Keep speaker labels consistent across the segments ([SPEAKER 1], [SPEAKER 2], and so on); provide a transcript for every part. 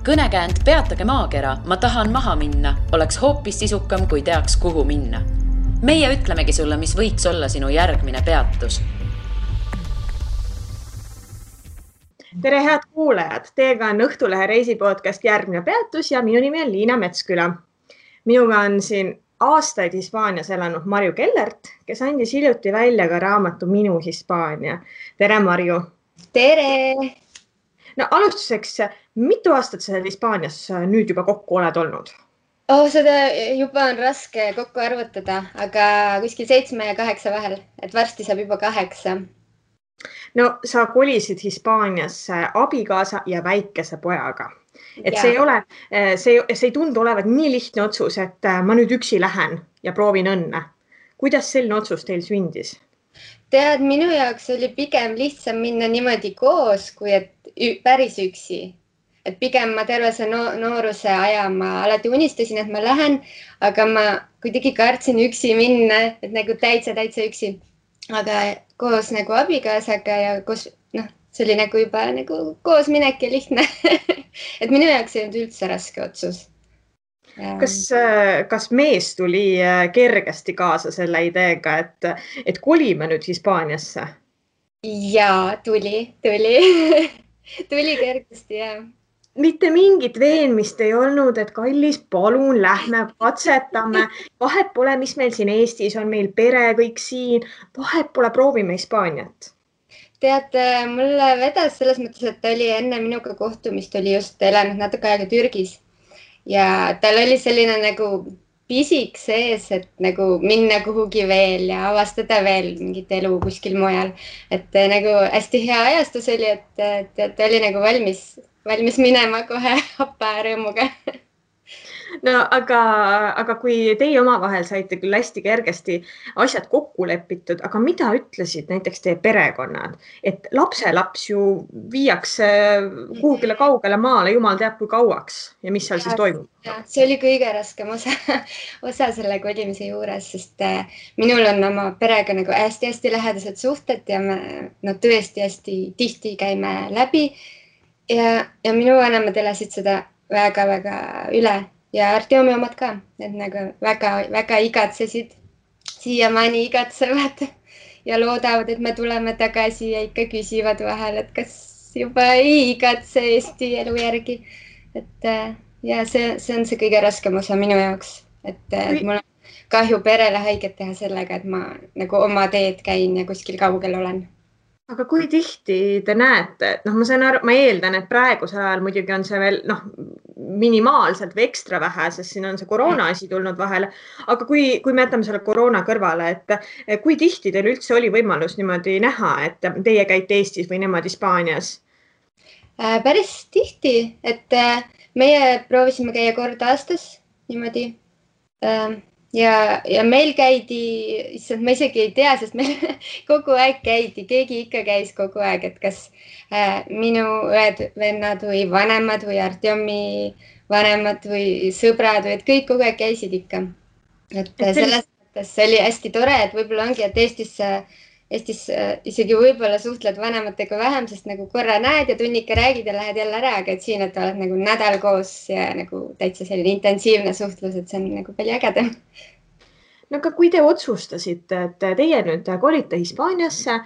[SPEAKER 1] Kõnekäänd Peatage maakera, ma tahan maha minna, oleks hoopis sisukam, kui teaks, kuhu minna. Meie ütlemegi sulle, mis võiks olla sinu järgmine peatus.
[SPEAKER 2] Tere, head kuulajad! Teiega on Õhtulehe reisipodcast Järgmine peatus ja minu nimi on Liina Metsküla. Minuga on siin aastaid Hispaanias elanud Marju Kellert, kes andis hiljuti välja ka raamatu Minu Hispaania. Tere, Marju!
[SPEAKER 3] Tere!
[SPEAKER 2] No alustuseks, mitu aastat sa Hispaanias nüüd juba kokku oled olnud?
[SPEAKER 3] Seda juba on raske kokku arvutada, aga kuskil 7 ja 8 vahel, et varsti saab juba 8.
[SPEAKER 2] No sa kolisid Hispaaniasse abikaasa ja väikese pojaga. Et see ei tundu olevat nii lihtne otsus, et ma nüüd üksi lähen ja proovin õnne. Kuidas selline otsus teil sündis?
[SPEAKER 3] Tead, minu jaoks oli pigem lihtsam minna niimoodi koos, kui et päris üksi. Et pigem ma terve see nooruse aja ma alati unistasin, et ma lähen, aga ma kuidagi kartsin üksi minna, et nagu täitsa üksi. Aga koos nagu abikaasaga ja koos, see oli nagu juba nagu koos minek ja lihtne. Et minu jaoks ei olnud üldse raske otsus.
[SPEAKER 2] Kas mees tuli kergesti kaasa selle ideega, et kolime nüüd Hispaaniasse?
[SPEAKER 3] Jaa, tuli. Tuli kergesti, jah.
[SPEAKER 2] Mitte mingit veenmist ei olnud, et kallis, palun, lähme, katsetame. Vahet pole, mis meil siin Eestis on, meil pere, kõik siin. Vahet pole, proovime Hispaaniat.
[SPEAKER 3] Tead, mulle vedas selles mõttes, et ta oli enne minuga kohtumist, oli just elanud natuke aega Türgis. Ja tal oli selline nagu pisik sees, et nagu minna kuhugi veel ja avastada veel mingit elu kuskil mujal. Et nagu hästi hea ajastus oli, et ta oli nagu valmis minema kohe happa rõõmuga.
[SPEAKER 2] No, aga kui teie omavahel saite küll hästi kergesti asjad kokku lepitud, aga mida ütlesid näiteks teie perekonnad? Et lapselaps ju viiakse kuhugile kaugele maale, jumal teab kui kauaks ja mis seal siis toimub?
[SPEAKER 3] See oli kõige raskem osa selle kolimise juures, sest minul on oma perega nagu hästi lähedased suhted ja me tõesti hästi tihti käime läbi. Ja minu vanemad elasid seda väga üle ja Artjomi omad ka, et nagu väga igatsesid, siiamaani igatsevad ja loodavad, et me tuleme tagasi ja ikka küsivad vahel, et kas juba ei igatse Eesti elu järgi. Et ja see on see kõige raskem osa minu jaoks, et mul on kahju perele haiget teha sellega, et ma nagu oma teed käin ja kuskil kaugel olen.
[SPEAKER 2] Aga kui tihti te näete, ma eeldan, et praegusel ajal muidugi on see veel minimaalselt või ekstra vähe, sest siin on see koroona asi tulnud vahele, aga kui me jätame selle koroona kõrvale, et kui tihti teil üldse oli võimalus niimoodi näha, et teie käite Eestis või nemad Hispaanias?
[SPEAKER 3] Päris tihti, et meie proovisime käia kord aastas niimoodi. Ja meil käidi, ma isegi ei tea, sest meil kogu aeg käidi, keegi ikka käis kogu aeg, et kas minu õed, vennad või vanemad või Artjomi vanemad või sõbrad või et kõik kogu aeg käisid ikka. Et selles mõttes see oli hästi tore, et võib-olla ongi, et Eestis isegi võib-olla suhtled vanematega vähem, sest nagu korra näed ja tunnike räägid ja lähed jälle ära, aga et siin, et oled nagu nädal koos ja nagu täitsa selline intensiivne suhtlus, et see on nagu palju ägedam.
[SPEAKER 2] No aga kui te otsustasite, et teie nüüd kolite Hispaaniasse,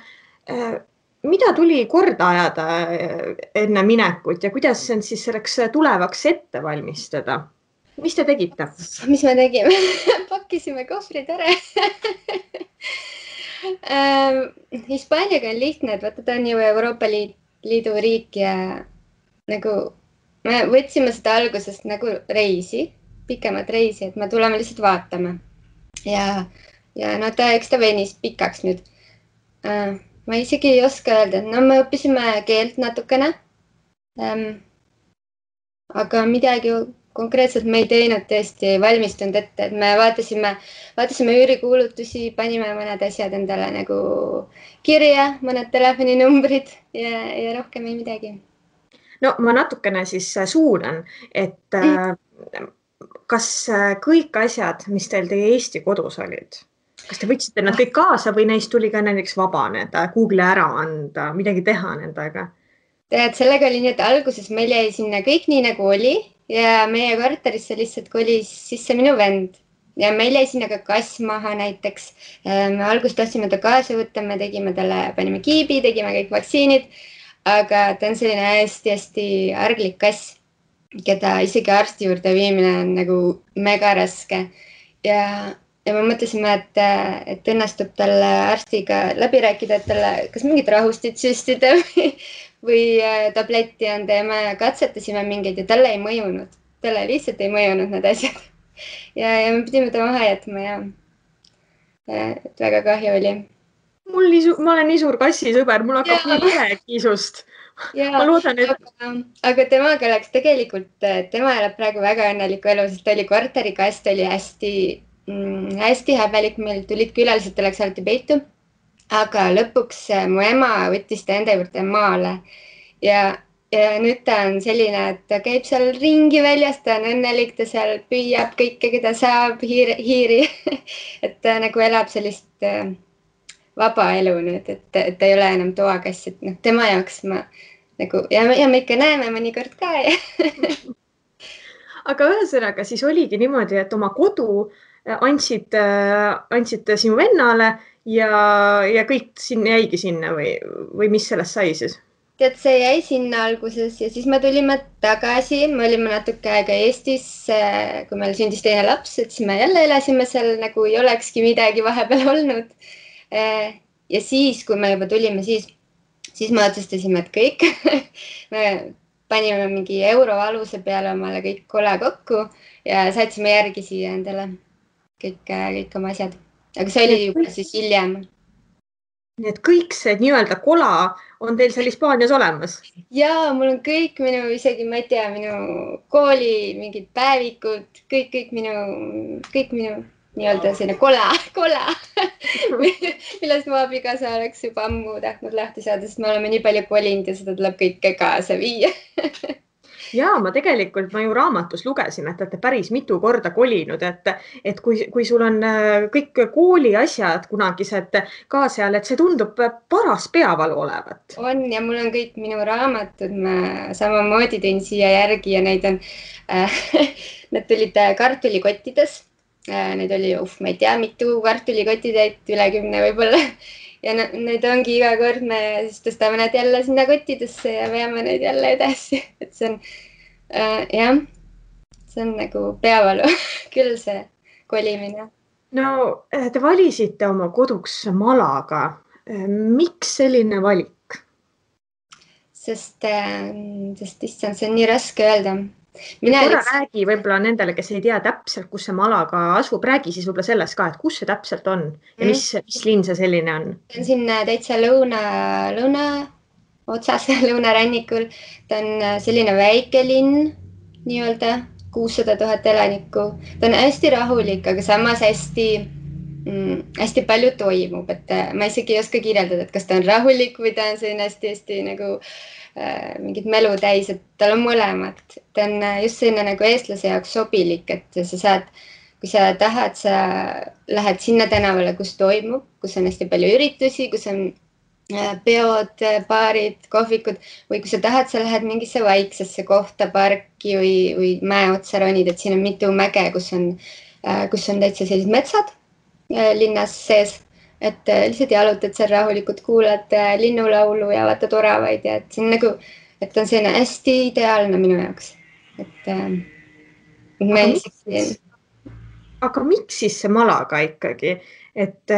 [SPEAKER 2] mida tuli korda ajada enne minekut ja kuidas see siis selleks tulevaks ette valmistada? Mis te tegite?
[SPEAKER 3] Mis me tegime? Pakkisime kohvrid ära. Hispaaniaga on lihtne, et vaata ta on ju Euroopa Liidu riik ja nagu me võtsime seda algusest nagu reisi, pikemat reisi, et me tuleme lihtsalt vaatama. Ja eks ta venis pikaks nüüd. Ma isegi ei oska öelda, et me õppisime keelt natukene, aga midagi konkreetselt me ei teinud, tõesti ei valmistunud ette, et me vaatasime üürikuulutusi, panime mõned asjad endale nagu kirja, mõned telefoninumbrid ja rohkem ei midagi.
[SPEAKER 2] No ma natukene siis suunan, et kas kõik asjad, mis teil teie Eesti kodus olid, kas te võtsite nad kõik kaasa või neist tuli ka näiteks vabaneda, Google ära anda, midagi teha nendega?
[SPEAKER 3] tead, sellega oli nii, et alguses meil jäi sinna kõik nii nagu oli ja meie korterisse lihtsalt kolis sisse minu vend ja meil jäi sinna ka kass maha näiteks. Me alguses tahtsime ta kaasa võtta, me tegime talle, panime kiibi, tegime kõik vaktsiinid, aga ta on selline hästi-hästi arglik kass, keda isegi arsti juurde viimine on nagu mega raske. Ja me mõtlesime, et õnnestub talle arstiga läbi rääkida, et talle kas mingit rahustit süstida või tabletti anda ja me katsetasime mingeid ja talle ei mõjunud. Talle lihtsalt ei mõjunud need asjad. Ja me pidime ta maha jätma ja et väga kahju oli.
[SPEAKER 2] Ma olen nii suur kassisõber, mul hakkab nii kiisust. Ma loodan,
[SPEAKER 3] aga temaga oleks tegelikult, tema elab praegu väga õnneliku elu, sest ta oli korterikast, oli hästi häbelik, meil tulid külalised, ta läks alati peitu. Aga lõpuks mu ema võttis ta enda juurde maale ja nüüd ta on selline, et ta käib seal ringi väljas, ta on õnnelik, ta seal püüab kõike, keda saab, hiiri. Et ta nagu elab sellist vaba elu nüüd, et ta ei ole enam toakass, et tema jaoks ma nagu ja me ikka näeme mõnikord ka.
[SPEAKER 2] Aga ühesõnaga siis oligi niimoodi, et oma kodu andsid sinu vennale ja kõik jäigi sinna või mis sellest sai siis?
[SPEAKER 3] Tead, see jäi sinna alguses ja siis me tulime tagasi, me olime natuke aega Eestis, kui meil sündis teine laps, et siis me jälle elasime seal nagu ei olekski midagi vahepeal olnud. Ja siis, kui me juba tulime, siis me otsustasime, et kõik, me panime mingi euro aluse peale omale kõik kola kokku ja saatsime järgi siia endale kõik oma asjad. Aga see oli juba siis hiljem.
[SPEAKER 2] Nii et kõik see nii-öelda kola on teil seal Hispaanias olemas?
[SPEAKER 3] Jaa, mul on kõik isegi ma ei tea, minu kooli mingid päevikud, kõik minu nii-öelda selline kola, millest mu abikaasa oleks juba ammu tahtnud lahti saada, sest me oleme nii palju kolinud ja seda tuleb kõike kaasa viia.
[SPEAKER 2] Jaa, ma ju raamatus lugesin, et olete päris mitu korda kolinud, et kui sul on kõik kooli asjad kunagised ka seal, et see tundub paras peavalu olevat.
[SPEAKER 3] On ja mul on kõik minu raamatud, ma samamoodi tõin siia järgi ja neid on, need tulid kartulikottides. Neid oli, ma ei tea, mitu kartulikotitäit, üle 10 võib-olla. Ja need ongi iga kord me siis tõstame need jälle sinna kottidesse ja veame neid jälle edasi. Et see on, see on nagu peavalu küll see kolimine.
[SPEAKER 2] No, te valisite oma koduks Malaga. Miks selline valik?
[SPEAKER 3] Sest issand, see on nii raske öelda.
[SPEAKER 2] Korra räägi võib-olla nendele, kes ei tea täpselt, kus see Malaga asub, räägi siis võib-olla sellest ka, et kus see täpselt on ja mis linn see selline on?
[SPEAKER 3] See on siin täitsa lõuna otsas, lõunarannikul. Ta on selline väike linn, nii-öelda 600 000 elanikku. Ta on hästi rahulik, aga samas hästi palju toimub, et ma isegi ei oska kirjeldada, et kas ta on rahulik või ta on selline hästi nagu mingid melu täis, et tal on mõlemad. Ta on just selline nagu eestlase jaoks sobilik, et sa saad, kui sa tahad, sa lähed sinna tänavale, kus toimub, kus on hästi palju üritusi, kus on peod, baarid, kohvikud või kui sa tahad, sa lähed mingisse vaiksesse kohta, parki või mäe otsa ronid, et siin on mitu mäge, kus on täitsa sellised metsad linnas sees. Et lihtsalt jalutad seal rahulikult, kuulad linnulaulu ja vaatad oravaid ja et see on nagu, et on selline hästi ideaalne minu jaoks.
[SPEAKER 2] Aga miks siis see Malaga ikkagi? Et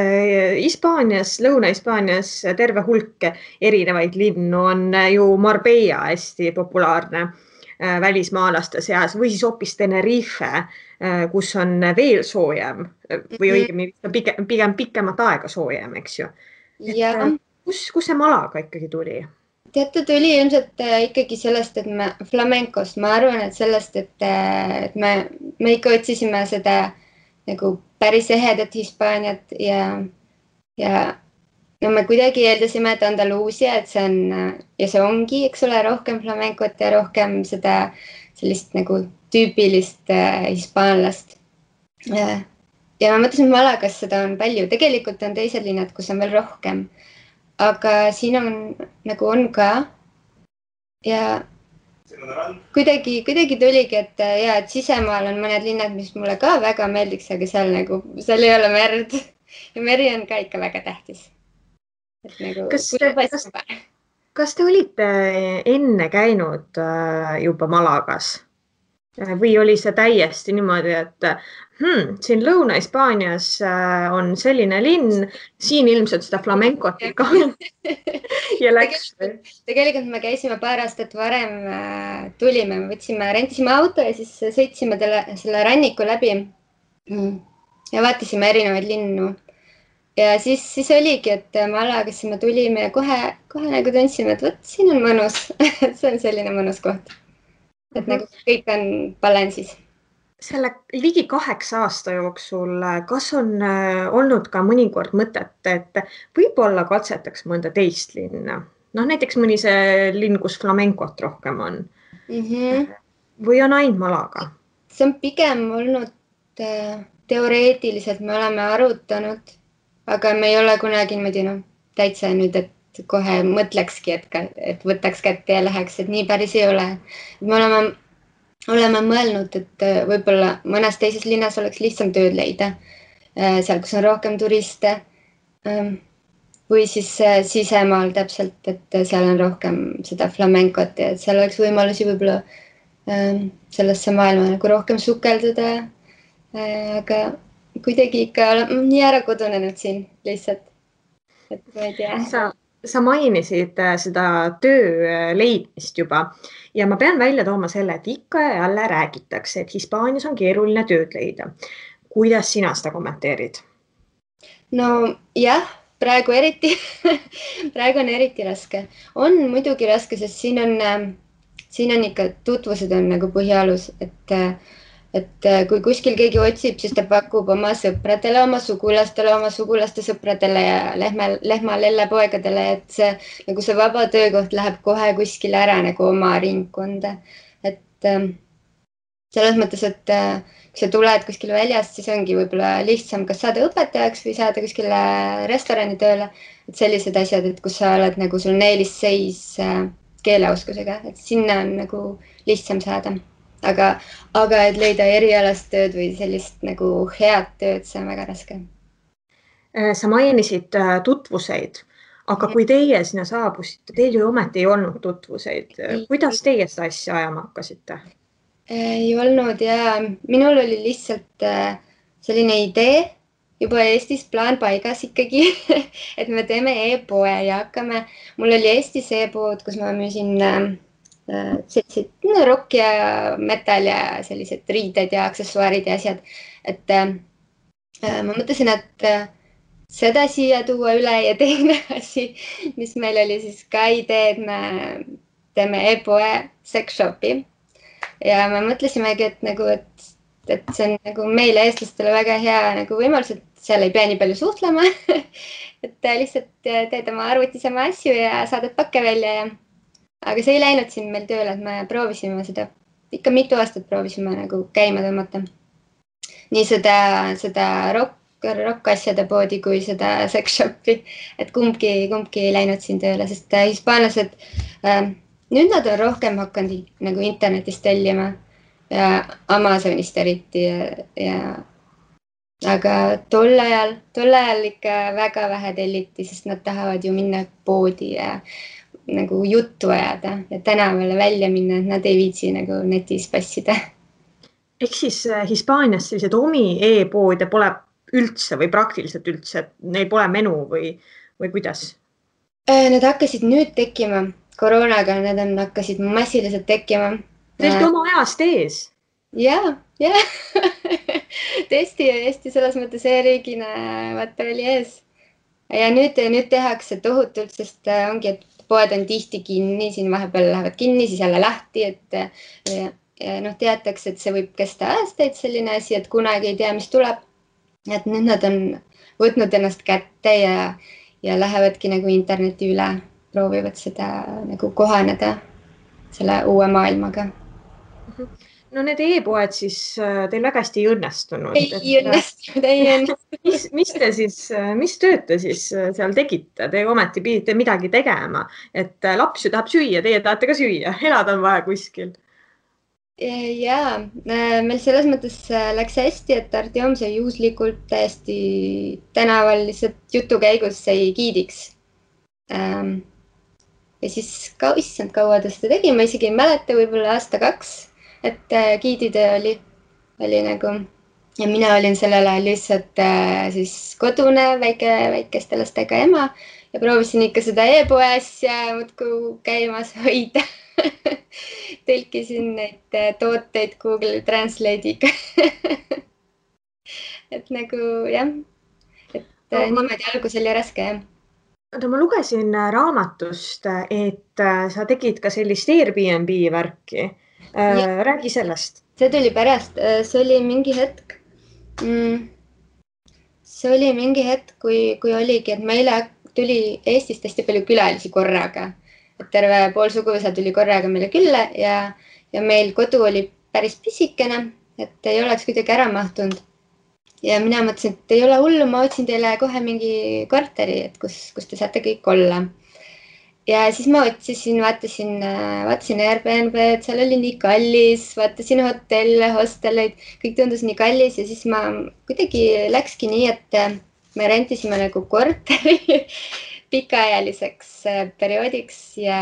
[SPEAKER 2] Hispaanias, Lõuna-Hispaanias terve hulk erinevaid linnu on ju Marbella hästi populaarne välismaalaste seas või siis hoopis Tenerife, kus on veel soojem või õigemini pigem pikemat aega soojem, eks ju. Kus see Malaga ikkagi tuli?
[SPEAKER 3] Teate, tuli ilmselt ikkagi sellest, et flamenkost, ma arvan, et sellest, et me ikka otsisime seda nagu päris ehedat Hispaaniat ja me kuidagi eeldasime, et Andaluusia, et see on, ja see ongi, eks ole, rohkem flamenkot ja rohkem seda sellist nagu tüüpilist hispaanlast. Ja ma mõtlesin, et Malagas seda on palju. Tegelikult on teised linnad, kus on veel rohkem. Aga siin on nagu on ka, ja kuidagi tuligi, et sisemaal on mõned linnad, mis mulle ka väga meeldiks, aga seal ei ole merd ja meri on ka ikka väga tähtis. Et nagu,
[SPEAKER 2] kas te olite enne käinud juba Malagas või oli see täiesti niimoodi, et siin Lõuna-Hispaanias on selline linn, siin ilmselt seda flamencot ikka ja läks?
[SPEAKER 3] Tegelikult me käisime paar aastat varem, tulime, rentisime auto ja siis sõitsime selle ranniku läbi ja vaatasime erinevaid linnu. Ja siis oligi, et Malagasse me tulime ja kohe nagu tundsime, et võt, siin on mõnus. See on selline mõnus koht. Et nagu kõik on balansis.
[SPEAKER 2] Selle ligi 8 aasta jooksul, kas on olnud ka mõnikord mõtet, et võib-olla katsetaks mõnda teist linna? Näiteks mõni see linn, kus flamencot rohkem on. Või on ainult Malaga?
[SPEAKER 3] See on pigem olnud teoreetiliselt, me oleme arutanud, aga me ei ole kunagi niimoodi täitsa nüüd, et kohe mõtlekski, et võtaks kätte ja läheks, et nii päris ei ole. Me oleme mõelnud, et võib-olla mõnes teises linnas oleks lihtsam tööd leida, seal, kus on rohkem turiste või siis sisemaal täpselt, et seal on rohkem seda flamencot ja seal oleks võimalusi võib-olla sellesse maailma nagu rohkem sukelduda, aga kuidagi ikka olen nii ära kodunenud siin lihtsalt, et ma ei tea.
[SPEAKER 2] Sa mainisid seda töö leidmist juba ja ma pean välja tooma selle, et ikka ja jälle räägitakse, et Hispaanias on keeruline tööd leida. Kuidas sina seda kommenteerid?
[SPEAKER 3] No jah, praegu on eriti raske. On muidugi raske, sest siin on ikka tutvused on nagu põhialus, et kui kuskil keegi otsib, siis ta pakub oma sõpradele, oma sugulaste sõpradele ja lehma lellepoegadele, et see vaba töökoht läheb kohe kuskile ära nagu oma ringkonda. Et selles mõttes, et kui sa tuled kuskile väljast, siis ongi võib-olla lihtsam kas saada õpetajaks või saada kuskile restorani tööle. Et sellised asjad, et kus sa oled nagu sul eelisseis keeleoskusega, et sinna on nagu lihtsam saada. Aga et leida erialast tööd või sellist nagu head tööd, see on väga raske.
[SPEAKER 2] Sa mainisid tutvuseid, aga kui teie sinna saabusite, teil ju ometi ei olnud tutvuseid. Kuidas teie seda asja ajama hakkasite?
[SPEAKER 3] Ei olnud ja minul oli lihtsalt selline idee juba Eestis plaan paigas ikkagi, et me teeme e-poe ja hakkame. Mul oli Eestis e-pood, kus ma müüsin sellised rock ja metal ja sellised riided ja aksessuaarid ja asjad. Et ma mõtlesin, et seda siia tuua üle ja teine asi, mis meil oli siis ka idee, et me teeme e-poe sex shopi. Ja me mõtlesimegi, et see on nagu meile eestlastele väga hea nagu võimalus, et seal ei pea nii palju suhtlema. Et lihtsalt teed oma arvutis oma asju ja saadad pakke välja ja aga see ei läinud siin meil tööle, et me proovisime seda, ikka mitu aastat proovisime nagu käima tõmmata. Nii seda rock asjade poodi kui seda sex shopi, et kumbki ei läinud siin tööle, sest hispaanlased, nüüd nad on rohkem hakanud nagu internetist tellima ja Amazonist eriti aga tol ajal ikka väga vähe telliti, sest nad tahavad ju minna poodi ja nagu juttu ajada ja tänavale välja minna, et nad ei viitsi nagu netis passida.
[SPEAKER 2] Ehk siis Hispaanias sellised omi e-poode pole üldse või praktiliselt üldse, et neil pole menu või kuidas?
[SPEAKER 3] Need hakkasid nüüd tekkima koroonaga, need hakkasid massiliselt tekkima.
[SPEAKER 2] Tõesti oma ajast ees?
[SPEAKER 3] Ja. Tõesti selles mõttes e-riigina vaata oli ees. Ja nüüd tehakse tohutult, sest ongi, et poed on tihti kinni, siin vahepeal lähevad kinni, siis jälle lahti, et teatakse, et see võib kesta aastaid selline asi, et kunagi ei tea, mis tuleb. Et nüüd nad on võtnud ennast kätte ja lähevadki nagu interneti üle, proovivad seda nagu kohaneda selle uue maailmaga.
[SPEAKER 2] no need e-poed siis teil väga hästi ei õnnestunud.
[SPEAKER 3] Ei õnnestunud.
[SPEAKER 2] Mis tööd te siis seal tegite? Te ometi pidite midagi tegema, et laps ju tahab süüa, teie tahate ka süüa, elada on vaja kuskil.
[SPEAKER 3] Jaa, meil selles mõttes läks hästi, et Artjom sai juhuslikult täiesti tänaval lihtsalt jutu käigus sai giidiks. Ja siis issand kaua ta seda tegi, ma isegi ei mäleta, võib-olla aasta-2, et giiditöö oli nagu ja mina olin sellel ajal lihtsalt siis kodune väikeste lastega ema ja proovisin ikka seda e-poe asja muudkui käimas hoida. Tõlkisin neid tooteid Google Translate'iga. Et nagu jah, et niimoodi algus oli raske jah.
[SPEAKER 2] Ma lugesin raamatust, et sa tegid ka sellist Airbnb värki. Räägi sellest.
[SPEAKER 3] See tuli pärast, see oli mingi hetk, kui oligi, et meile tuli Eestist hästi palju külalisi korraga. Et terve pool suguvõsa tuli korraga meile külla ja meil kodu oli päris pisikene, et ei oleks kuidagi ära mahtunud. Ja mina mõtlesin, et ei ole hullu, ma otsin teile kohe mingi korteri, et kus te saate kõik olla. Ja siis ma otsisin, vaatasin Airbnb, et seal oli nii kallis, vaatasin hotelle, hostelleid, kõik tundus nii kallis ja siis ma kuidagi läkski nii, et me rentisime nagu korteri pikaajaliseks perioodiks ja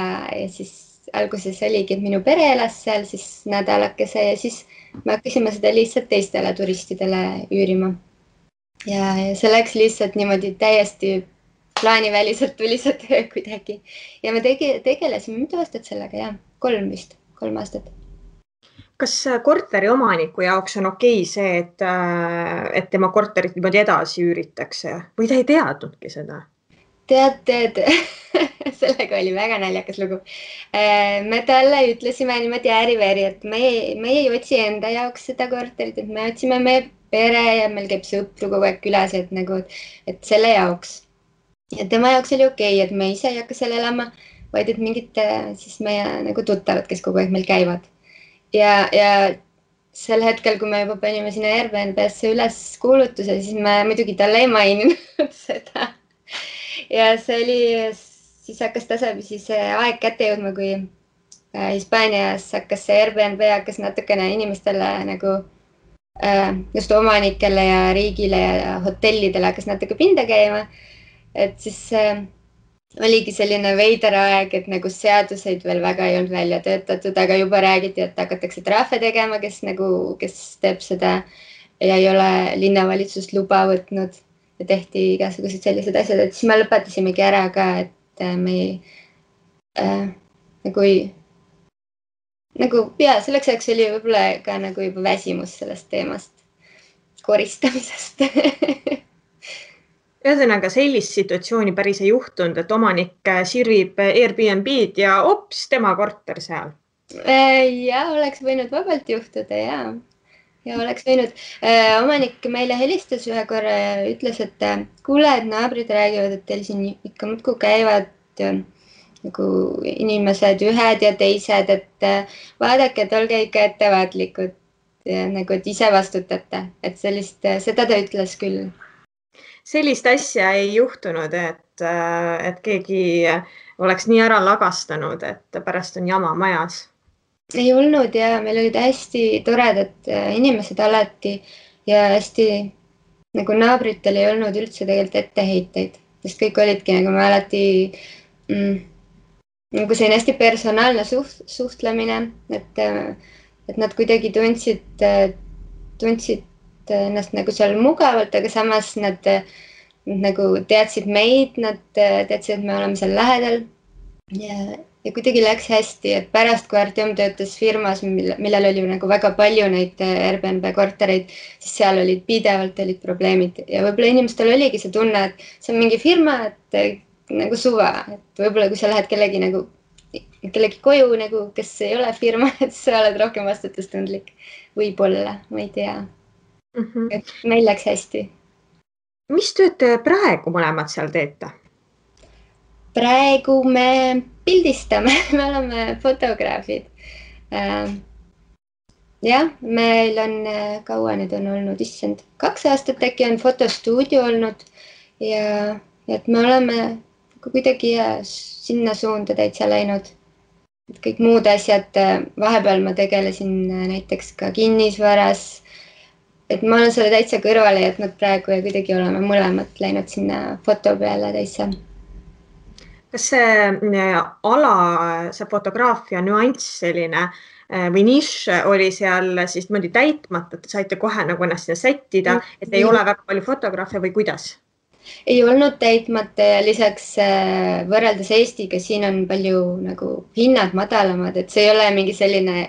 [SPEAKER 3] siis alguses oligi, et minu pere elas seal siis nädalakese ja siis me hakkasime seda lihtsalt teistele turistidele üürima. Ja see läks lihtsalt niimoodi täiesti plaaniväliselt tuli see töö kuidagi. Ja me tegelesime mitu aastat sellega, jah, 3 aastat.
[SPEAKER 2] Kas korteri omaniku jaoks on okei see, et tema korterit niimoodi edasi üüritakse või ta ei teadnudki seda?
[SPEAKER 3] Tead, sellega oli väga naljakas lugu. Me talle ütlesime niimoodi ääriveri, et me ei otsi enda jaoks seda korterit, et me otsime meie pere ja meil käib sõpru kogu aeg külas, et selle jaoks. Ja tema jaoks oli okei, et me ise ei hakka seal elama, vaid et mingid siis meie nagu tuttavad, kes kogu aeg meil käivad. Ja sel hetkel, kui me juba panime sinna Airbnb-sse üles kuulutuse, siis me muidugi talle ei maininud seda. Ja see oli, siis hakkas tasapisi see aeg kätte jõudma, kui Hispaanias hakkas see Airbnb hakkas natukene inimestele nagu just omanikele ja riigile ja hotellidele hakkas natuke pinda käima. Et siis oligi selline veider aeg, et nagu seaduseid veel väga ei olnud välja töötatud, aga juba räägiti, et hakatakse trahve tegema, kes teeb seda ja ei ole linnavalitsus luba võtnud. Ja tehti igasugused sellised asjad, et siis me lõpetasimegi ära ka, et me selleks ajaks oli võib-olla ka nagu juba väsimus sellest teemast, koristamisest.
[SPEAKER 2] Ühesõnaga sellist situatsiooni päris ei juhtunud, et omanik sirvib Airbnb-d ja ops, tema korter seal.
[SPEAKER 3] Ja oleks võinud vabalt juhtuda, jaa. Ja oleks võinud. Omanik meile helistas ühe korra ja ütles, et kuule, et naabrid räägivad, et teil siin ikka muudkui käivad nagu inimesed ühed ja teised, et vaadake, et olge ikka ettevaatlikud ja nagu, et ise vastutate. Et seda ta ütles küll.
[SPEAKER 2] Sellist asja ei juhtunud, et keegi oleks nii ära lagastanud, et pärast on jama majas.
[SPEAKER 3] Ei olnud ja meil olid hästi toredad inimesed alati ja hästi nagu naabritel ei olnud üldse tegelikult etteheiteid, sest kõik olidki nagu me alati nagu see on hästi personaalne suhtlemine, et nad kuidagi tundsid ennast nagu seal mugavalt, aga samas nad nagu teadsid meid, nad teadsid, et me oleme seal lähedal ja kuidagi läks hästi, et pärast, kui Artjom töötas firmas, millel oli nagu väga palju neid Airbnb kortereid, siis seal olid pidevalt probleemid ja võib-olla inimestel oligi see tunne, et see on mingi firma, et nagu suva, et võib-olla kui sa lähed kellegi koju, nagu, kes ei ole firma, et sa oled rohkem vastutustundlik. Võib-olla, ma ei tea. Et meil läks hästi.
[SPEAKER 2] Mis tööd te praegu mõlemad seal teete?
[SPEAKER 3] Praegu me pildistame, me oleme fotograafid. jah, meil on kaua nüüd on olnud, issand, 2 aastat äkki on fotostuudio olnud ja et me oleme kuidagi sinna suunda täitsa läinud. Et kõik muud asjad, vahepeal ma tegelesin näiteks ka kinnisvaras, et ma olen selle täitsa kõrvale jätnud praegu ja kuidagi oleme mõlemad läinud sinna foto peale täitsa.
[SPEAKER 2] Kas see ala, see fotograafia nüanss selline või nišš oli seal siis niimoodi täitmata, et saite kohe nagu ennast sinna sättida, et ei ole väga palju fotograafe või kuidas?
[SPEAKER 3] Ei olnud täitmata ja lisaks võrreldes Eestiga siin on palju nagu hinnad madalamad, et see ei ole mingi selline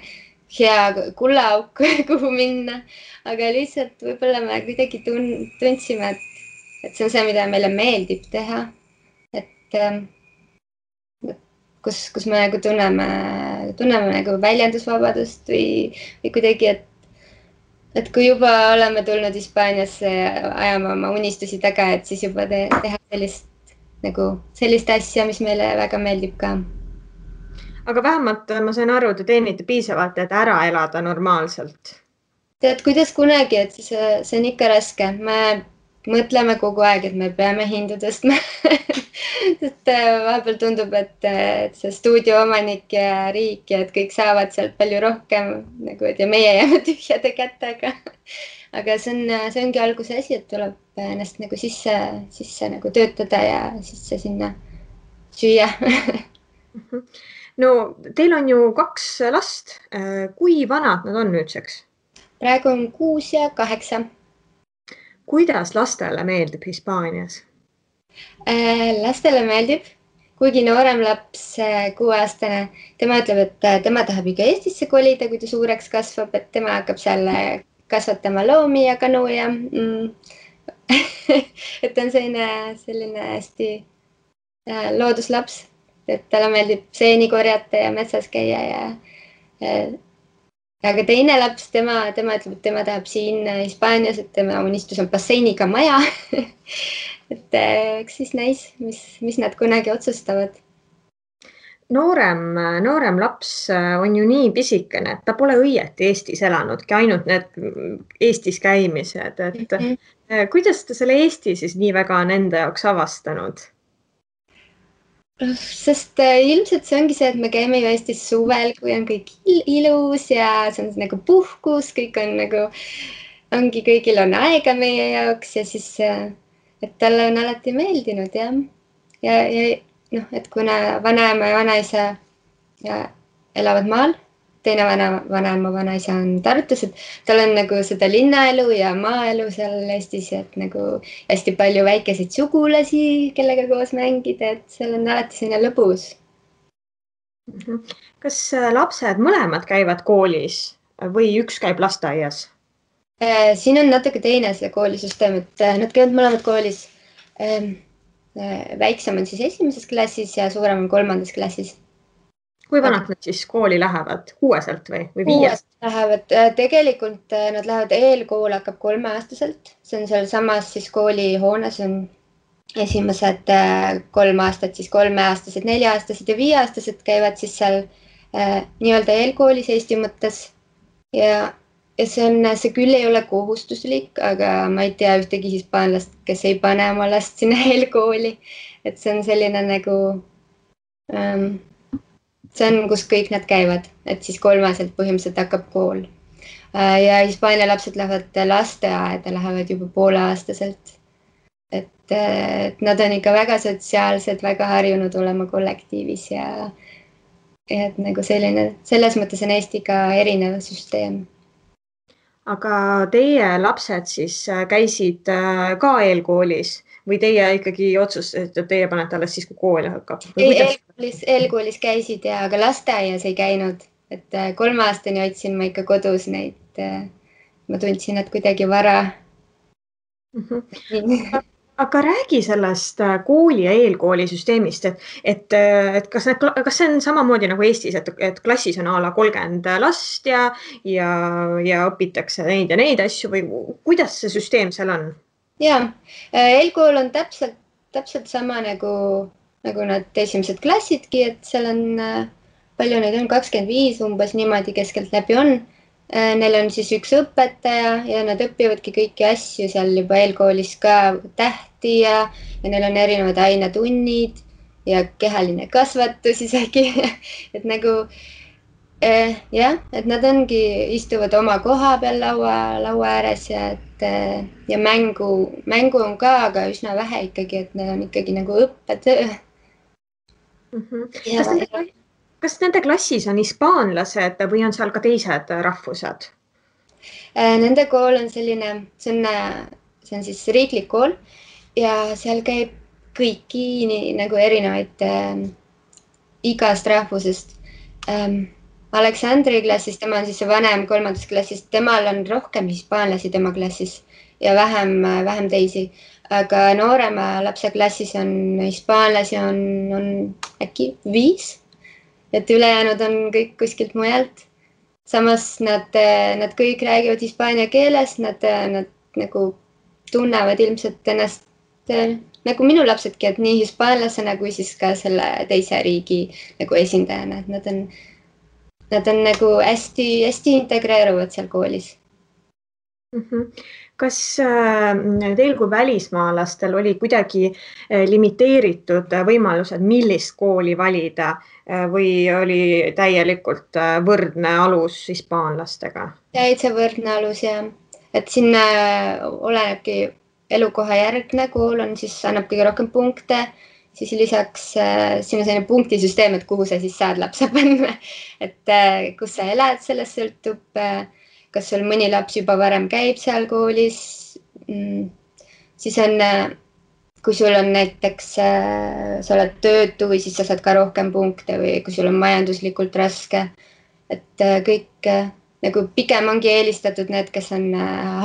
[SPEAKER 3] hea kullaauk, kuhu minna, aga lihtsalt võib-olla me kuidagi tundsime, et see on see, mida meile meeldib teha, et kus me nagu tunneme nagu väljendusvabadust või kuidagi, et kui juba oleme tulnud Hispaaniasse ajama oma unistusi taga, et siis juba teha sellist asja, mis meile väga meeldib ka.
[SPEAKER 2] Aga vähemalt ma sain aru, te teenite piisavalt, et ära elada normaalselt.
[SPEAKER 3] Tead, kuidas kunagi, et see on ikka raske. Me mõtleme kogu aeg, et me peame hindu tõstma. Sest vahepeal tundub, et see stuudio omanik ja riik ja et kõik saavad sealt palju rohkem nagu, et ja meie jääme tühjade kätega. Aga see ongi alguse asi, et tuleb ennast nagu sisse nagu töötada ja sisse sinna süüa.
[SPEAKER 2] No teil on ju 2 last. Kui vanad nad on nüüdseks?
[SPEAKER 3] Praegu on 6 ja 8.
[SPEAKER 2] Kuidas lastele meeldib Hispaanias?
[SPEAKER 3] Lastele meeldib, kuigi noorem laps, 6-aastane, tema ütleb, et tema tahab ikka Eestisse kolida, kui ta suureks kasvab, et tema hakkab seal kasvatama loomi ja kanu ja et on selline hästi looduslaps, et talle meeldib seeni korjata ja metsas käia ja aga teine laps, tema ütleb, et tema tahab siin Hispaanias, et tema unistus on basseiniga maja. Et eks siis näis, mis nad kunagi otsustavad.
[SPEAKER 2] Noorem laps on ju nii pisikene, et ta pole õieti Eestis elanudki, ainult need Eestis käimised. Et kuidas ta selle Eesti siis nii väga on enda jaoks avastanud?
[SPEAKER 3] Sest ilmselt see ongi see, et me käime ju Eestis suvel, kui on kõik ilus ja see on nagu puhkus, kõik on nagu, kõigil on aega meie jaoks ja siis, et talle on alati meeldinud jah. Ja noh, et kuna vanaema ja vanaisa elavad maal, teine vanaema vanaisa on Tartus, et tal on nagu seda linnaelu ja maaelu seal Eestis, et nagu hästi palju väikeseid sugulasi, kellega koos mängida, et seal on alati selline lõbus.
[SPEAKER 2] Kas lapsed mõlemad käivad koolis või üks käib lasteaias?
[SPEAKER 3] Siin on natuke teine see koolisüsteem, et nad käivad mõlemad koolis. Väiksem on siis 1. klassis ja suurem on 3. klassis.
[SPEAKER 2] Kui vanad nad siis kooli lähevad? 6-selt või 5?
[SPEAKER 3] Lähevad. Tegelikult nad lähevad eelkool hakkab 3-aastaselt. See on seal samas siis koolihoones on esimesed 3 aastat, siis 3-aastased, 4-aastased ja 5-aastased käivad siis seal nii-öelda eelkoolis Eesti mõttes. Ja see küll ei ole kohustuslik, aga ma ei tea ühtegi hispaanlast, kes ei pane oma last sinna eelkooli. Et see on selline nagu... see on, kus kõik nad käivad, et siis 3-selt põhimõtteliselt hakkab kool. Ja Hispaania lapsed lähevad lasteaeda, lähevad juba 5-aastaselt. Et nad on ikka väga sotsiaalsed, väga harjunud olema kollektiivis ja et nagu selles mõttes on Eestiga erinev süsteem.
[SPEAKER 2] Aga teie lapsed siis käisid ka eelkoolis? Või teie ikkagi otsustasite, et teie panete alles siis, kui kool hakkab?
[SPEAKER 3] Eelkoolis käisid ja aga lasteaias ei käinud. Et 3-aastani otsin ma ikka kodus neid. Ma tundsin, et kuidagi vara.
[SPEAKER 2] Aga räägi sellest kooli ja eelkooli süsteemist, et kas see on samamoodi nagu Eestis, et klassis on a la 30 last ja õpitakse neid ja neid asju või kuidas see süsteem seal on?
[SPEAKER 3] Ja, eelkool on täpselt sama nagu nad esimesed klassidki, et seal on palju neid on, 25 umbes niimoodi keskelt läbi on. Neil on siis üks õpetaja ja nad õpivadki kõiki asju seal juba eelkoolis ka tähti ja neil on erinevad ainetunnid ja kehaline kasvatus isegi, et nagu jah, et nad istuvad oma koha peal laua ääres ja mängu on ka, aga üsna vähe ikkagi, et need on ikkagi nagu õppetöö.
[SPEAKER 2] Kas nende klassis on hispaanlased või on seal ka teised rahvused?
[SPEAKER 3] Nende kool on selline, see on siis riiklik kool ja seal käib kõiki nagu erinevaid igast rahvusest. Aleksandri klassis, tema on siis see vanem 3. klassist, temal on rohkem hispaanlasi tema klassis ja vähem teisi. Aga noorema lapse klassis on hispaanlasi on äkki 5, et ülejäänud on kõik kuskilt mujalt. Samas nad kõik räägivad hispaania keeles, nad nagu tunnevad ilmselt ennast nagu minu lapsedki, et nii hispaanlasena kui siis ka selle teise riigi nagu esindajana, et nad on nagu hästi integreeruvad seal koolis.
[SPEAKER 2] Kas teil kui välismaalastel oli kuidagi limiteeritud võimalused, millist kooli valida või oli täielikult võrdne alus hispaanlastega?
[SPEAKER 3] Täitsa võrdne alus ja et siin olenebki elukoha järgne kool on siis annab kõige rohkem punkte, siis lisaks siin on selline punktisüsteem, et kuhu sa siis saad lapse panna, et kus sa elad, sellest sõltub, kas sul mõni laps juba varem käib seal koolis, siis on, kui sul on näiteks, sa oled töötu või siis sa saad ka rohkem punkte või kui sul on majanduslikult raske, et kõik nagu pigem ongi eelistatud need, kes on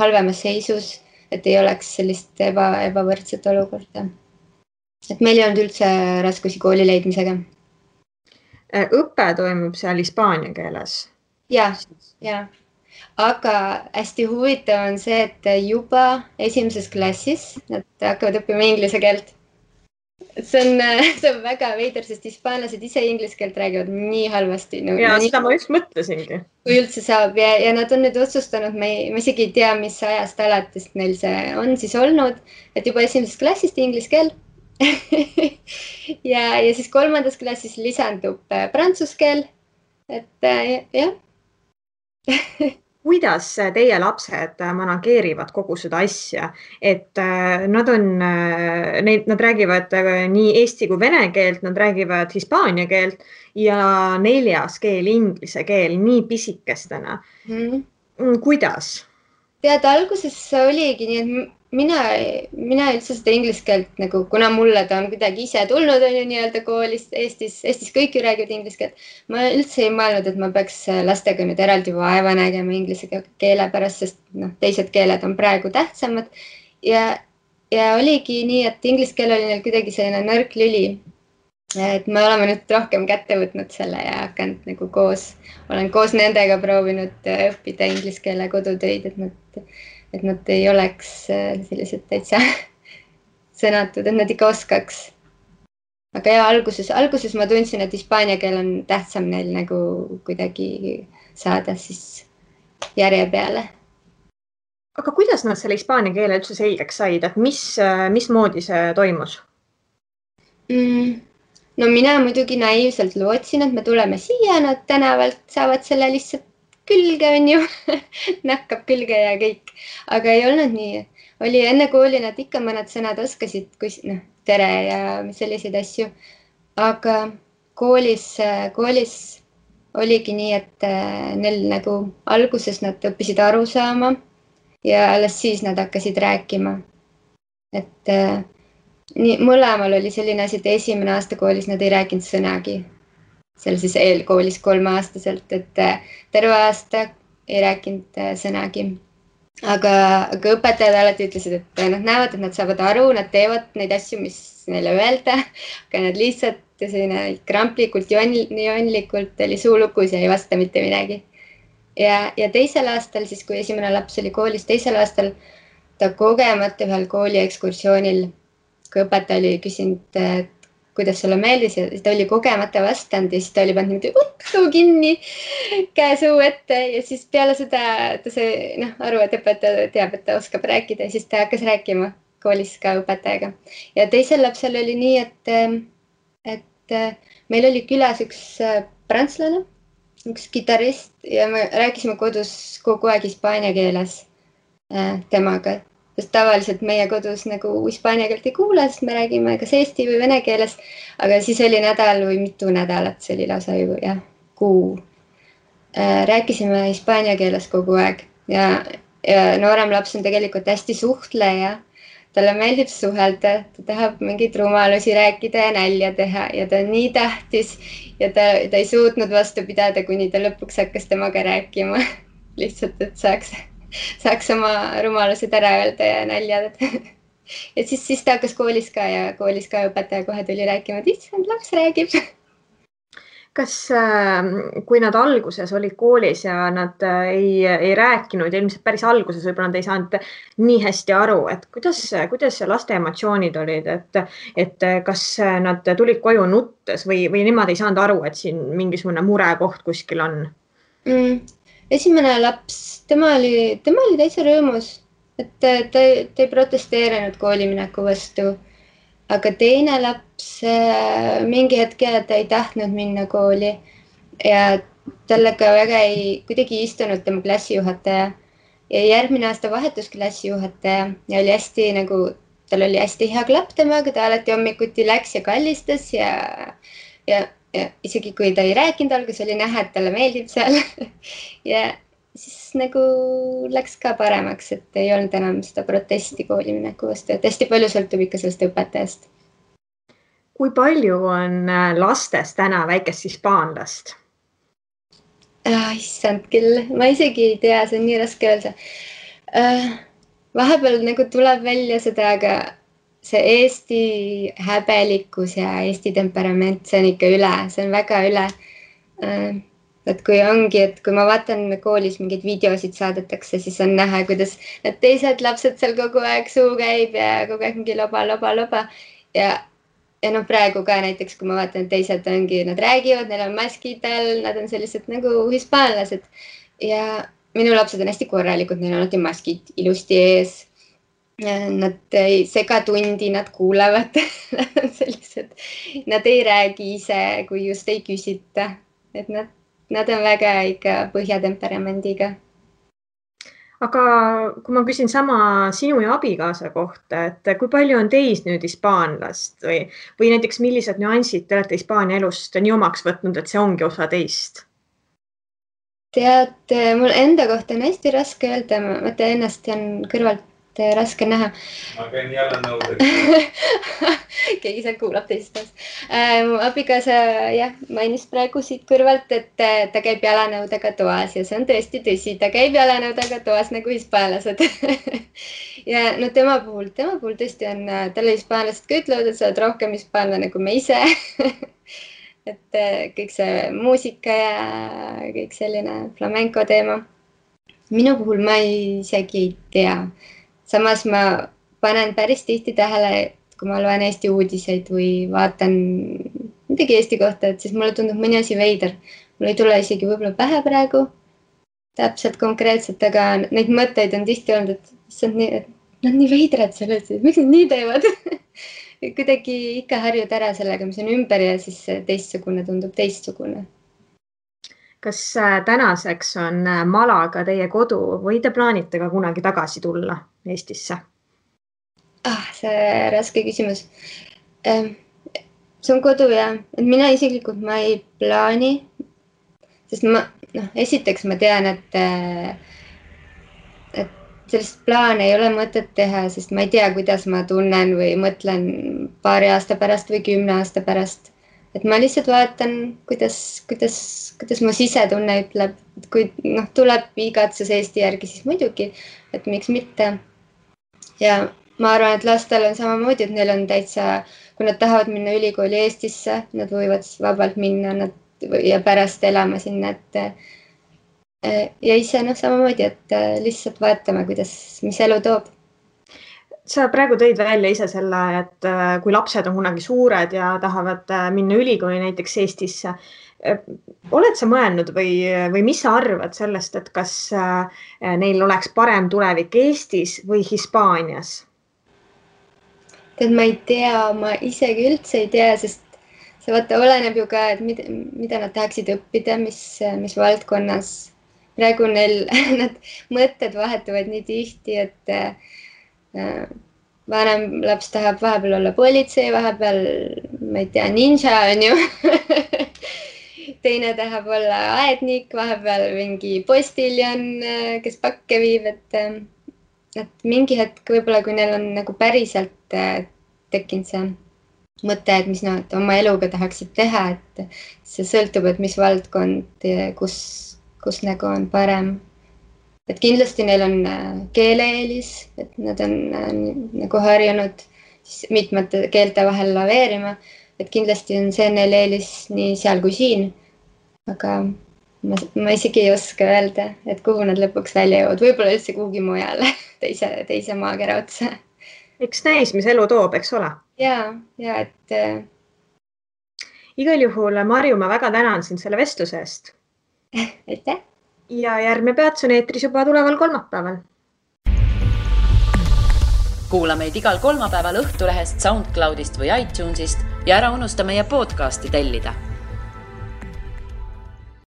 [SPEAKER 3] halvemas seisus, et ei oleks sellist ebavõrdset olukorda. Et meil ei olnud üldse raskusi kooli leidmisega.
[SPEAKER 2] Õpe toimub seal hispaania keeles?
[SPEAKER 3] Ja. Aga hästi huvitav on see, et juba 1. klassis nad hakkavad õppima inglise keelt. See on väga veider, sest hispaanlased ise inglise keelt räägivad nii halvasti.
[SPEAKER 2] Seda ma just mõtlesingi.
[SPEAKER 3] Kui üldse saab ja nad on nüüd otsustanud, ma isegi ei tea, mis ajast alates neil see on siis olnud, et juba 1. klassist inglise keel. ja siis 3. klassis lisandub prantsuse keel, et jah.
[SPEAKER 2] Kuidas teie lapsed manageerivad kogu seda asja, et nad räägivad nii eesti kui vene keelt, nad räägivad hispaania keelt ja 4. keel, inglise keel, nii pisikestena. Kuidas? Tead,
[SPEAKER 3] alguses oligi nii, et mina üldse seda inglise keelt, nagu, kuna mulle ta on kuidagi ise tulnud, on ju nii-öelda koolist, Eestis kõik ju räägivad inglise keelt. Ma üldse ei mõelnud, et ma peaks lastega nüüd eraldi vaeva nägema inglise keele pärast, sest teised keeled on praegu tähtsamad. Ja oligi nii, et inglise keel oli neil kuidagi selline nõrk lüli. Et me oleme nüüd rohkem kätte võtnud selle ja hakanud nagu olen koos nendega proovinud õppida inglise keele kodutöid, et nad ei oleks sellised täitsa sõnatud, et nad ikka oskaks. Aga ja alguses ma tundsin, et hispaania keel on tähtsam neil nagu kuidagi saada siis järje peale.
[SPEAKER 2] Aga kuidas nad selle hispaania keele üldse selgeks said, et mismoodi see toimus?
[SPEAKER 3] No mina muidugi naiivselt lootsin, et me tuleme siia, nad tänavalt saavad selle lihtsalt külge, on ju, nakkab külge ja kõik. Aga ei olnud nii. Oli enne kooli nad ikka mõned sõnad oskasid, tere ja selliseid asju. Aga koolis oligi nii, et neil nagu alguses nad õppisid aru saama ja alles siis nad hakkasid rääkima. Et mõlemal oli selline asi, et 1. aasta koolis nad ei rääkinud sõnagi. Seal siis eelkoolis 3-aastaselt, et terve aasta ei rääkinud sõnagi. Aga õpetajad alati ütlesid, et nad näevad, et nad saavad aru, nad teevad neid asju, mis neile öelda, aga nad lihtsalt kramplikult, joonlikult oli suu lukus ja ei vasta mitte midagi. Ja 2. aastal, siis kui 1. laps oli koolis, 2. aastal ta kogemata ühel kooli ekskursioonil, kui õpetaja oli küsinud, kuidas sulle meeldis ja ta oli kogemata vastanud ja siis ta oli pannud niimoodi suu kinni, käe suu ette ja siis peale seda ta sai aru, et õpetaja teab, et ta oskab rääkida ja siis ta hakkas rääkima koolis ka õpetajaga. Ja teisel lapsel oli nii, et meil oli külas üks prantslane, üks kitarrist ja me rääkisime kodus kogu aeg hispaania keeles temaga. Sest tavaliselt meie kodus nagu hispaania keelt ei kuule, sest me räägime kas eesti või vene keeles, aga siis oli nädal või mitu nädalat, see oli lausa ju kuu. Rääkisime hispaania keeles kogu aeg ja noorem laps on tegelikult hästi suhtleja. Talle meeldib suhelda, ta tahab mingeid rumalusi rääkida ja nälja teha ja ta on nii tähtis ja ta ei suutnud vastu pidada, kuni ta lõpuks hakkas temaga rääkima. Lihtsalt, et saaks oma rumalused ära öelda ja nälja. Ja siis ta hakkas koolis ka ja koolis ka õpetaja kohe tuli rääkima, et issand, laps räägib.
[SPEAKER 2] Kas, kui nad alguses olid koolis ja nad ei rääkinud ja ilmselt päris alguses võib-olla nad ei saanud nii hästi aru, et kuidas laste emotsioonid olid, et kas nad tulid koju nuttes või nemad ei saanud aru, et siin mingisugune murekoht kuskil on?
[SPEAKER 3] Esimene laps, tema oli täitsa rõõmus, et ta ei protesteerinud koolimineku vastu, aga teine laps mingi hetke ta ei tahtnud minna kooli ja tallega väga kuidagi istunud tema klassijuhataja ja järgmine aasta vahetus klassijuhataja ja oli hästi tal oli hästi hea klapp temaga, ta alati hommikuti läks ja kallistas ja isegi kui ta ei rääkinud alguses, oli näha, et talle meeldib seal ja siis läks ka paremaks, et ei olnud enam seda protesti koolimineku vastu, et hästi palju sõltub ikka sellest õpetajast.
[SPEAKER 2] Kui palju on lastes täna väikest hispaanlast?
[SPEAKER 3] Issand küll, ma isegi ei tea, see on nii raske öelda. Vahepeal tuleb välja seda, aga see Eesti häbelikkus ja Eesti temperament, see on ikka üle, see on väga üle. Et kui ongi, et kui ma vaatan koolis mingeid videosid saadetakse, siis on näha, kuidas need teised lapsed seal kogu aeg suu käib ja kogu aeg mingi loba. Ja praegu ka näiteks, kui ma vaatan, et teised ongi, nad räägivad, neil on maskid all, nad on sellised nagu hispaanlased. Ja minu lapsed on hästi korralikud, neil on alati maskid ilusti ees. Nad ei sega tundi, nad kuulevad, nad on sellised, nad ei räägi ise, kui just ei küsita, et nad on väga ikka põhjatemperamendiga.
[SPEAKER 2] Aga kui ma küsin sama sinu ja abikaasa kohta, et kui palju on teis nüüd hispaanlast või näiteks millised nüansid te olete Hispaania elust nii omaks võtnud, et see ongi osa teist?
[SPEAKER 3] Tead, mul enda kohta on hästi raske öelda, ma tean ennast ja on kõrvalt raske näha.
[SPEAKER 4] Ma käin jalanõudega.
[SPEAKER 3] Keegi seal kuulab teisest. Mu abikaasa mainis praegu siit kõrvalt, et ta käib jalanõudega toas ja see on tõesti tõsi, ta käib jalanõudega toas nagu hispaanlased. Ja tema puhul tõesti on, talle hispaanlased ka ütlevad, et sa oled rohkem hispaanlane kui me ise. Et kõik see muusika ja kõik selline flamenco teema. Minu puhul ma isegi ei tea. Samas ma panen päris tihti tähele, et kui ma loen Eesti uudiseid või vaatan midagi Eesti kohta, et siis mulle tundub mõni asi veider. Mul ei tule isegi võib-olla pähe praegu täpselt konkreetselt, aga neid mõtteid on tihti olnud, et nad nii veidrad sellest, et miks nad nii teevad? Kuidagi ikka harjud ära sellega, mis on ümber ja siis teistsugune tundub teistsugune.
[SPEAKER 2] Kas tänaseks on Malaga teie kodu või te plaanite ka kunagi tagasi tulla Eestisse?
[SPEAKER 3] See raske küsimus. See on kodu ja mina isiklikult ma ei plaani, sest esiteks ma tean, et sellist plaane ei ole mõtet teha, sest ma ei tea, kuidas ma tunnen või mõtlen paari aasta pärast või 10 aasta pärast. Et ma lihtsalt vaatan, kuidas mu sisetunne ütleb, et kui tuleb igatsus Eesti järgi, siis muidugi, et miks mitte. Ja ma arvan, et lastel on samamoodi, et neil on täitsa, kui nad tahavad minna ülikooli Eestisse, nad võivad vabalt minna ja pärast elama sinna, ja ise samamoodi, et lihtsalt vaatame, mis elu toob.
[SPEAKER 2] sa praegu tõid välja ise selle, et kui lapsed on kunagi suured ja tahavad minna ülikooli näiteks Eestisse. Oled sa mõelnud või mis sa arvad sellest, et kas neil oleks parem tulevik Eestis või Hispaanias?
[SPEAKER 3] Tead, ma ei tea, ma isegi üldse ei tea, sest see vaata oleneb ju ka, et mida nad tahaksid õppida, mis valdkonnas. Praegu neil nad mõtted vahetuvad nii tihti, et vanem laps tahab vahepeal olla politsei, vahepeal, ma ei tea, ninja on ju. Teine tahab olla aednik, vahepeal mingi postiljon, kes pakke viib, et mingi hetk võib-olla, kui neil on nagu päriselt tekkinud see mõte, et mis nad oma eluga tahaksid teha, et see sõltub, et mis valdkond, kus nagu on parem. Et kindlasti neil on keeleeelis, et nad on nagu harjunud mitmete keelte vahel laveerima, et kindlasti on see neil eelis nii seal kui siin. Aga ma isegi ei oska öelda, et kuhu nad lõpuks välja jõuavad. Võib-olla üldse kuhugi mujale, teise maakera otsa.
[SPEAKER 2] Eks näis, mis elu toob, eks ole?
[SPEAKER 3] Ja, et...
[SPEAKER 2] Igal juhul, Marju, ma väga tänan sind selle vestluse eest.
[SPEAKER 3] Aitäh!
[SPEAKER 2] Ja järgmine peats on eetris juba tuleval kolmapäeval.
[SPEAKER 1] Kuula meid igal kolmapäeval Õhtulehest, SoundCloudist või iTunesist ja ära unusta meie podcasti tellida.